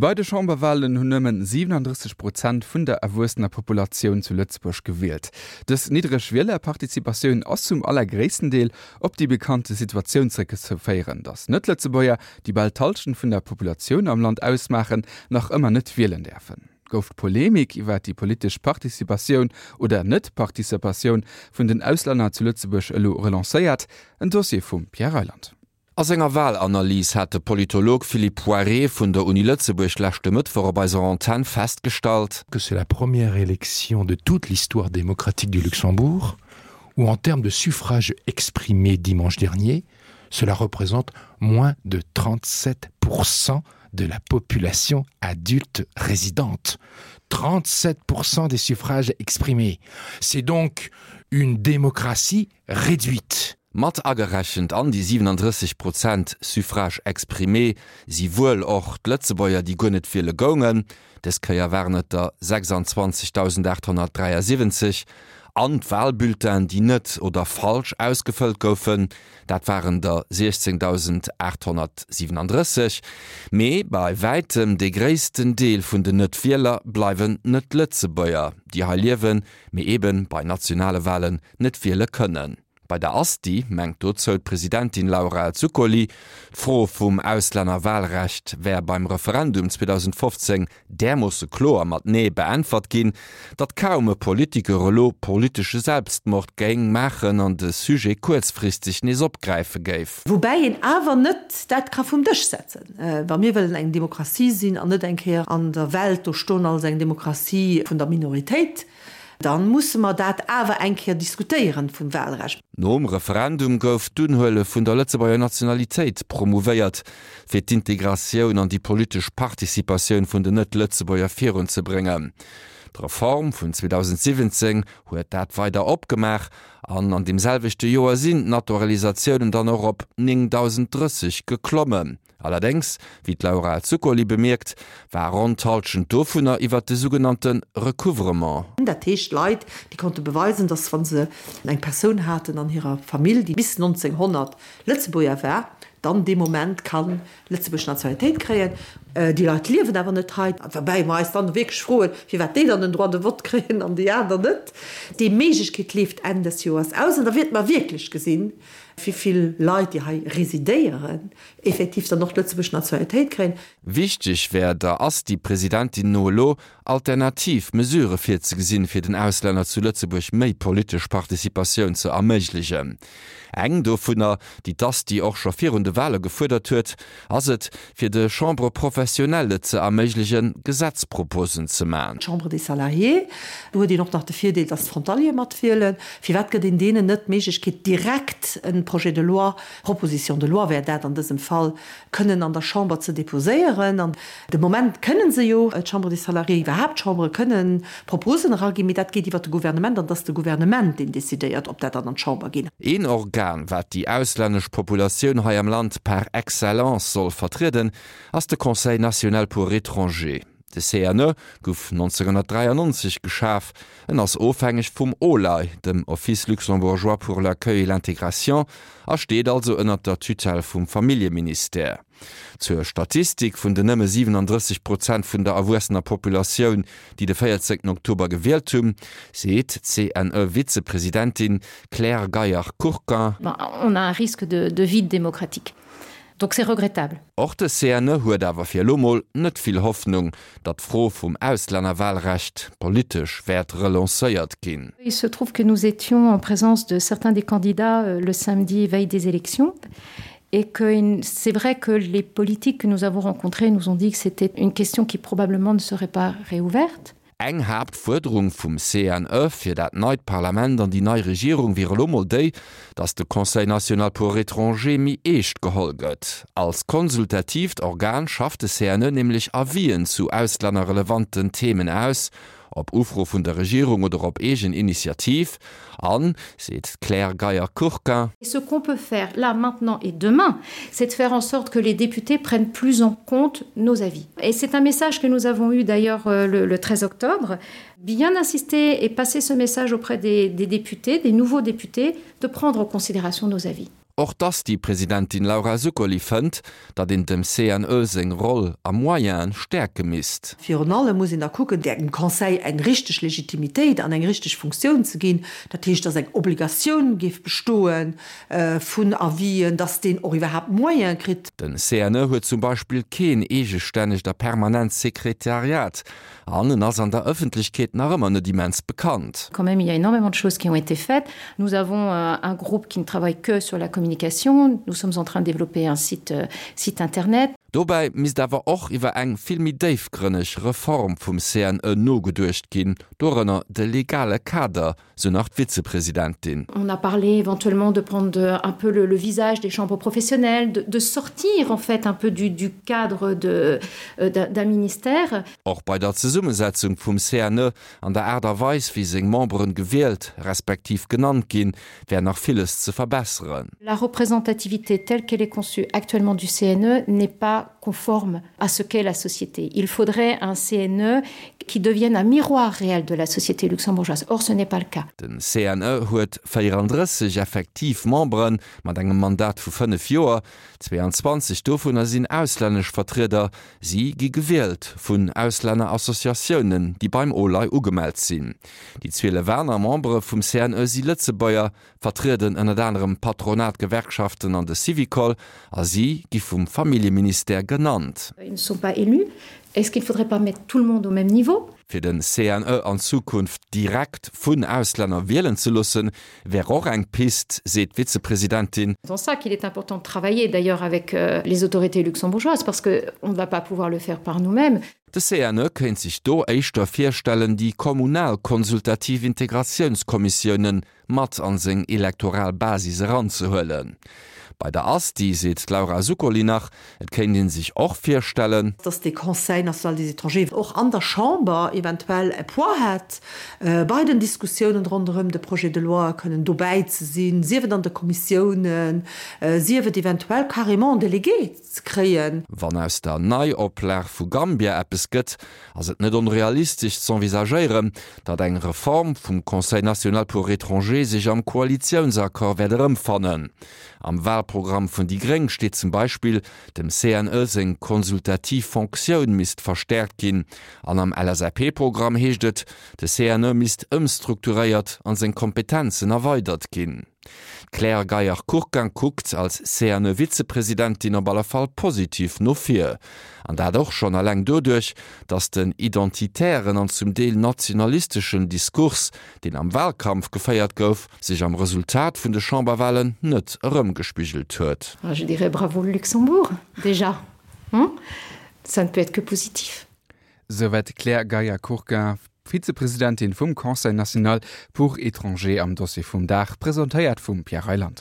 Bei de Chamberwalen hunn nëmmen 37 Prozent vun der erwuessener Populatioun zu Lëtzebuerg gewielt. Dës niddreg Wielerparticipatioun ass zum allergréissten Deel op déi bekannte Situatioun zeréckzeféieren, datt Net-Lëtzebuerger, déi bal d'Hallschent vun der Populatioun am Land ausmaachen, nach ëmmer net wielen däerfen. Gouf d'Polemik iwwer déi politesch Participatioun oder Net-Participatioun vun den Auslänner zu Lëtzebuerg elo relancéiert? En Dossier vum Pierre Reyland. A senger Walanalys hat de Politolog Philippe Poiré vun der Uni Lëtzebuerg leschte Mëttwoch op eiser Antenn festgestallt, que c'est la première élection de toute l'histoire démocratique du Luxembourg où en termes de suffrage exprimé dimanche dernier, cela représente moins de 37% de la population adulte résidente. 37% des suffrages exprimés. C'est donc une démocratie réduite. Mat agerechent an déi 37 Prozent Suffrages exprimés si wuel och d'Lëtzebuerger, déi guer net wiele goungen, dës Kéier waren et der 26.873, an d'Walbulletinen, déi net oder falsch ausgefëllt goufen, dat waren der 16.837. Mee bei wäitem dee gréissten Deel vun den Net-Wieler bleiwen Net-Lëtzebuerger, déi hei liewen, mee eebe bei nationale Walen net wiele kënnen. Bei der Asti mengt dozou d'Presidentin Laura Zuccoli, d'Fro vum Auslännerwahlrecht wär beim Referendum 2015 därmoosse kloer mat Nee beäntwert ginn, datt kaum e Politiker elo politesche Selbstmord géing maachen an de Sujet kuerzfristeg nees opgräife géif. Woubäi een awer net dat ka vum Dësch setzen, wa mir wëllen eng Demokratie sinn an net eng Kéier an der Welt do stoen als eng Demokratie vun der Minoritéit. Dann musse mer dat awer eng Kéier diskutéieren vum Wahlrecht. Nom Referendum gouf d'Unhuele vun der Lëtzebuerger Nationalitéit promouvéiert, fir d'Integratioun an déi politesch Participatioun vun den Net-Lëtzebuerger virunzebréngen. D'Reform vun 2017 huet dat weider opgemaach an an deem selwechte Joer sinn d'Naturalisatiounen dann och op 9.030 geklommen. Allerdéngs, wéi d'Laura Zuccoli bemierkt, war ronn d'Hallschent dovunner iwwer de sougenannte Recouvrement. Dat heescht Leit, déi konnte beweisen, datt wa se eng Persoun haten an hirer Famill, déi bis 1900 Lëtzebuerger war, dann dee Moment ka Lëtzebuerg Nationalitéit kréien. Déi Leit liewen awer net hei. Woubäi mer eis dann wierklech froen, firwat déi dann den Droit de vote kréien an déi aner net. Déi Méiglechkeet leeft Enn des Joers aus an da wäerte mer wierklech gesinn, wéi vill Leit, déi hei residéieren, effektiv dann och d'lëtzebuergesch Nationalitéit kréien. Wichteg wär der Asti-Presidentin no elo, alternativ Mesurë virzegesinn, fir den Auslänner zu Lëtzebuerg méi politesch Participatioun ze erméiglegen. Eng dovunner, déi d'Asti och scho virun de Wale gefuerdert huet, ass et, fir de Chambres professionnelles ze erméiglegen, Gesetzproposen ze man. D'Chambre des Salariés, do huet een och nach de Virdeel, dass d'Frontaliere matwielen. Firwat gëtt een deenen net d'Méiglechkeet, direkt e Projet de loi Proposition de loi wär dat an dësem Fall, kënnen an der Chamber ze déposéieren. An de Moment kënnen se jo, d'Chambre des Salariés, iwwerhaapt d'Chambere kënnen Proposen eraginn, mee dat geet iwwert de Gouvernement an et ass de Gouvernement, deen décidéiert, ob dat dann an d'Chamber geet. Een Organ, wat déi auslännesch Populatioun hei am Land par excellence soll vertrieden, ass de Conseil national pour étrangers. De CNE gouf 1993 geschaf. En ass ofhängeg vum OLAI, dem Office luxembourgeois pour l'accueil et l'intégration, a steet also ënnert der Tutelle vum Familljeministère. Zur Statistik vun den nëmme 37 Prozent vun der erwuessener Populatioun, déi de 14 Oktober gewielt hunn, seet d'CNE-Vizepresidentin Claire Geier-Courquin. On a un risque de vide démocratique. Donc c'est regrettable. Och de CNE huet awer fir elo mol net vill Hoffnung, datt d'Fro vum Auslännerwahlrecht politesch wäert relancéiert ginn. Il se trouve que nous étions en présence de certains des candidats euh, le samedi veille des élections et que c'est vrai que les politiques que nous avons rencontrées nous ont dit que c'était une question qui probablement ne serait pas réouverte. Eng Haaptfuerderung vum CNE fir dat neit Parlament an déi nei Regierung wier elo mol déi, datt de Conseil national pour étrangers méi eescht geholl gëtt. Als konsultatiivt Organ schafft de CNE nämlech Avisen zu auslännerrelevanten Themen aus, op Ufro vun der Regierung oder op eegen Initiativ. An, seet d'Claire Geyer-Courquin. Ce qu'on peut faire là, maintenant et demain, c'est de faire en sorte que les députés prennent plus en compte nos avis. Et c'est un message que nous avons eu d'ailleurs euh, le, le 13 octobre, bien insister et passer ce message auprès des, des députés, des nouveaux députés, de prendre en considération nos avis. Och d'Asti-Presidentin Laura Zuccoli fënnt, datt een dem CNE seng Roll a Moyene stäerke misst. Virun allem muss een da kucken, dem Conseil eng richteg Legitimitéit an eng richteg Funktioun ze ginn. Dat heescht, datt eng Obligatioun géif bestoe vun Avisen, datt deen och iwwerhaapt Moyene kritt. Den CNE huet zum Beispill keen eegestännegt a permanent Sekretariat an en ass an der Ëffentlechkeet nach ëmmer net immens bekannt. Quand même, il y a énormément de choses qui ont été faites. Nous avons euh, un groupe qui ne travaille que sur la communication. Nous sommes en train de développer un site, euh, site internet. Dobäi misst awer och iwwer eng vill méi déifgrënneg Reform vum CNE nogeduecht ginn, dorënner de legale Kader, sou nach d'Vizepresidentin. On a parlé éventuellement de prendre un peu le, le visage des chambres professionnelles, de, de sortir en fait un peu du, du cadre de, euh, d'un ministère. Och bei der Zesummesetzung vum CNE an der Aart a Weis, wéi seng Memberen gewielt, respektiv genannt ginn, wär nach villes ze verbesseren. La représentativité telle qu'elle est conçue actuellement du CNE n'est pas conforme à ce qu'est la société. Il faudrait un CNE qui devienne un miroir réel de la société luxembourgeoise. Or ce n'est pas le cas. Den CNE huet 34 effektiv Memberen mat engem Mandat vu 5 Joer. 22 dovunner sinn auslännesch Vertrieder. Si gi gewielt vun Auslännerassociatiounen, déi beim OLAI ugemellt sinn. Déi 12 aner Membere vum CNE si Lëtzebuerger, vertrieden ënnert anerem d'Patronat, d'Gewerkschaften an de Syvicol a si gi vum Familljeministère genannt. Ils ne sont pas élus. Est-ce qu'il ne faudrait pas mettre tout le monde au même niveau? Fir den CNE an Zukunft direkt vun Auslänner wielen ze loossen, wär och eng Pist, seet d'Vizepresidentin. C'est en ça qu'il est important de travailler d'ailleurs avec les autorités luxembourgeoises parce que on ne va pas pouvoir le faire par nous-mêmes. De CNE kéint sech do éischter virstellen, déi kommunal konsultativ Integratiounskommissiounen mat an seng elektoral Basis eranzehuelen. Bei der Asti seet d'Laura Zuccoli nach, et kéint ee sech och virstellen, dass dee Conseil national des étrangers och an der Chamber eventuell e Poids hätt bei den Diskussiounen ronderëm de Projet de loi kënnen dobäi ze sinn, sief et an de Kommissiounen, sief et eventuell carrément en Délégué ze kréien. Wann aus der Neioplag vu Gambia eppes gëtt, ass et net onrealistesch z'envisagéieren, datt eng Reform vum Conseil national pour étrangers sech am Koalitiounsaccord wäert erëmfannen. Am Wahlprogramm vun déi gréng steet zum Beispill, dem CNE seng konsultativ Fonctioun misst verstäerkt ginn. An am LSAP-Programm heescht et, de CNE misst ëmstrukturéiert an seng Kompetenzen erweidert ginn. D'Claire Geier-Courquin kuckt als CNE-Vizepresidentin op alle Fall positiv no vir. An dat och schonn eleng doduerch, datt den identitären an zum Deel nationalisteschen Diskurs, deen am Wahlkampf geféiert gouf, sech am Resultat vun de Chamberwahlen net erëmgespigelt huet. Je dirais bravo le Luxembourg, déjà, hein? Ça ne peut être que positif. Souwäit d'Claire Geier-Courquin, Vizepresidentin vum Conseil national pour étrangers am Dossier vum Dag, presentéiert vum Pierre Reyland.